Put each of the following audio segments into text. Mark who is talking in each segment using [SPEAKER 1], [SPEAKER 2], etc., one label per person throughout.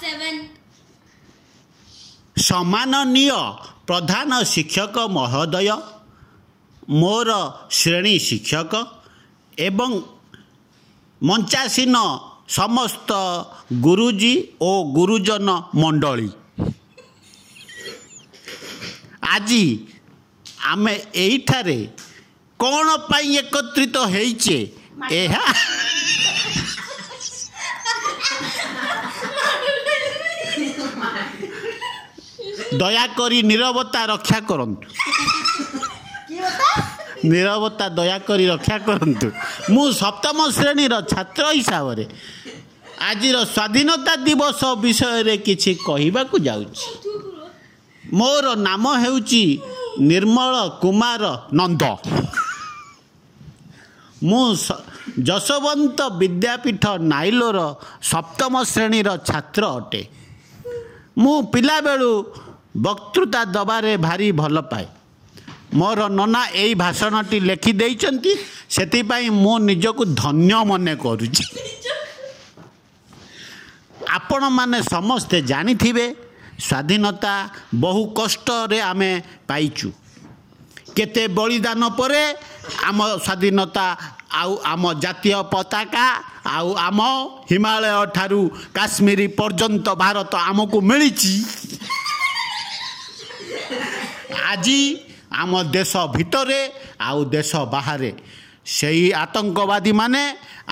[SPEAKER 1] 7.
[SPEAKER 2] ସମ୍ମାନନୀୟ ପ୍ରଧାନ ଶିକ୍ଷକ ମହୋଦୟ, ମୋର ଶ୍ରେଣୀ ଶିକ୍ଷକ ଏବଂ ମଞ୍ଚାସୀନ ସମସ୍ତ ଗୁରୁଜୀ ଓ ଗୁରୁଜନ ମଣ୍ଡଳୀ, ଆଜି ଆମେ ଏଇଠାରେ କ'ଣ ପାଇଁ ଏକତ୍ରିତ ହେଇଛେ ଏହା ଦୟାକରି ନୀରବତା ରକ୍ଷା କରନ୍ତୁ। ନୀରବତା ଦୟାକରି ରକ୍ଷା କରନ୍ତୁ। ମୁଁ ସପ୍ତମ ଶ୍ରେଣୀର ଛାତ୍ର ହିସାବରେ ଆଜିର ସ୍ୱାଧୀନତା ଦିବସ ବିଷୟରେ କିଛି କହିବାକୁ ଯାଉଛି। ମୋର ନାମ ହେଉଛି ନିର୍ମଳ କୁମାର ନନ୍ଦ। ମୁଁ ଯଶୋବନ୍ତ ବିଦ୍ୟାପୀଠ ନାଇଲୋର ସପ୍ତମ ଶ୍ରେଣୀର ଛାତ୍ର ଅଟେ। ମୁଁ ପିଲାବେଳୁ ବକ୍ତୃତା ଦେବାରେ ଭାରି ଭଲ ପାଏ। ମୋର ନନା ଏଇ ଭାଷଣଟି ଲେଖି ଦେଇଛନ୍ତି, ସେଥିପାଇଁ ମୁଁ ନିଜକୁ ଧନ୍ୟ ମନେ କରୁଛି। ଆପଣମାନେ ସମସ୍ତେ ଜାଣିଥିବେ, ସ୍ୱାଧୀନତା ବହୁ କଷ୍ଟରେ ଆମେ ପାଇଛୁ। କେତେ ବଳିଦାନ ପରେ ଆମ ସ୍ୱାଧୀନତା ଆଉ ଆମ ଜାତୀୟ ପତାକା ଆଉ ଆମ ହିମାଳୟ ଠାରୁ କାଶ୍ମୀର ପର୍ଯ୍ୟନ୍ତ ଭାରତ ଆମକୁ ମିଳିଛି। ଆଜି ଆମ ଦେଶ ଭିତରେ ଆଉ ଦେଶ ବାହାରେ ସେଇ ଆତଙ୍କବାଦୀମାନେ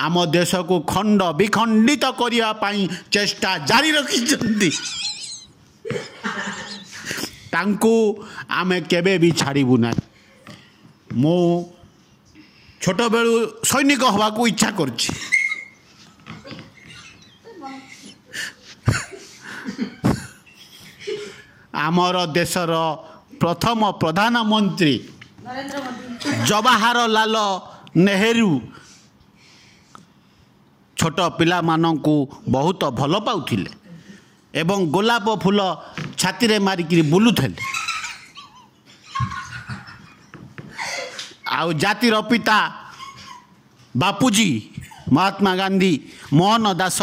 [SPEAKER 2] ଆମ ଦେଶକୁ ଖଣ୍ଡ ବିଖଣ୍ଡିତ କରିବା ପାଇଁ ଚେଷ୍ଟା ଜାରି ରଖିଛନ୍ତି। ତାଙ୍କୁ ଆମେ କେବେ ବି ଛାଡ଼ିବୁ ନାହିଁ। ମୁଁ ଛୋଟବେଳୁ ସୈନିକ ହେବାକୁ ଇଚ୍ଛା କରୁଛି। ଆମର ଦେଶର ପ୍ରଥମ ପ୍ରଧାନମନ୍ତ୍ରୀ ଜବାହରଲାଲ ନେହେରୁ ଛୋଟ ପିଲାମାନଙ୍କୁ ବହୁତ ଭଲ ପାଉଥିଲେ ଏବଂ ଗୋଲାପ ଫୁଲ ଛାତିରେ ମାରିକିରି ବୁଲୁଥିଲେ। ଆଉ ଜାତିର ପିତା ବାପୁଜୀ ମହାତ୍ମା ଗାନ୍ଧୀ, ମୋହନ ଦାସ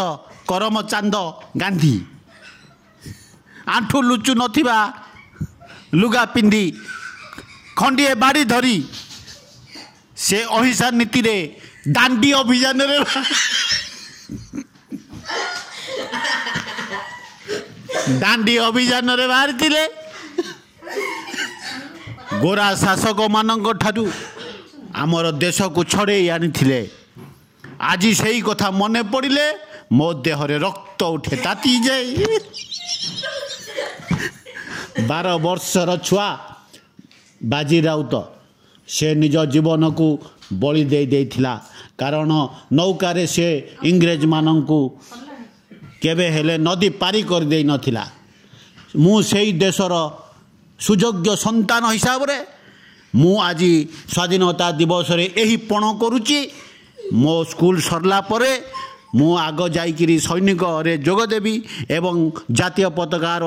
[SPEAKER 2] କରମଚାନ୍ଦ ଗାନ୍ଧୀ ଆଣ୍ଠୁ ଲୁଚୁ ନଥିବା ଲୁଗା ପିନ୍ଧି ଖଣ୍ଡିଏ ବାଡ଼ି ଧରି ସେ ଅହିଂସା ନୀତିରେ ଦାଣ୍ଡି ଅଭିଯାନରେ ଦାଣ୍ଡି ଅଭିଯାନରେ ବାହାରିଥିଲେ। ଗୋରା ଶାସକମାନଙ୍କ ଠାରୁ ଆମର ଦେଶକୁ ଛଡ଼େଇ ଆଣିଥିଲେ। ଆଜି ସେଇ କଥା ମନେ ପଡ଼ିଲେ ମୋ ଦେହରେ ରକ୍ତ ଉଠେ, ତାତି ଯାଏ। 12 ବର୍ଷର ଛୁଆ ବାଜି ରାଉତ ସେ ନିଜ ଜୀବନକୁ ବଳି ଦେଇ ଦେଇଥିଲା, କାରଣ ନୌକାରେ ସେ ଇଂରେଜମାନଙ୍କୁ କେବେ ହେଲେ ନଦୀ ପାରି କରିଦେଇ ନଥିଲା। ମୁଁ ସେଇ ଦେଶର ସୁଯୋଗ୍ୟ ସନ୍ତାନ ହିସାବରେ ମୁଁ ଆଜି ସ୍ୱାଧୀନତା ଦିବସରେ ଏହି ପଣ କରୁଛି। ମୋ ସ୍କୁଲ ସରିଲା ପରେ ମୁଁ ଆଗ ଯାଇକିରି ସୈନିକରେ ଯୋଗ ଦେବି ଏବଂ ଜାତୀୟ ପତାକାର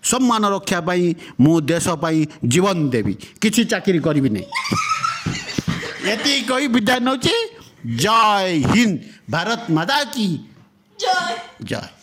[SPEAKER 2] ସମ୍ମାନ ରକ୍ଷା ପାଇଁ ମୁଁ ଦେଶ ପାଇଁ ଜୀବନ ଦେବି। କିଛି ଚାକିରି କରିବି ନାହିଁ। ଏତିକି କହି ବିଦାୟ ନେଉଛି। ଜୟ ହିନ୍ଦ, ଭାରତ ମାତା କି
[SPEAKER 1] ଜୟ।
[SPEAKER 2] ଜୟ।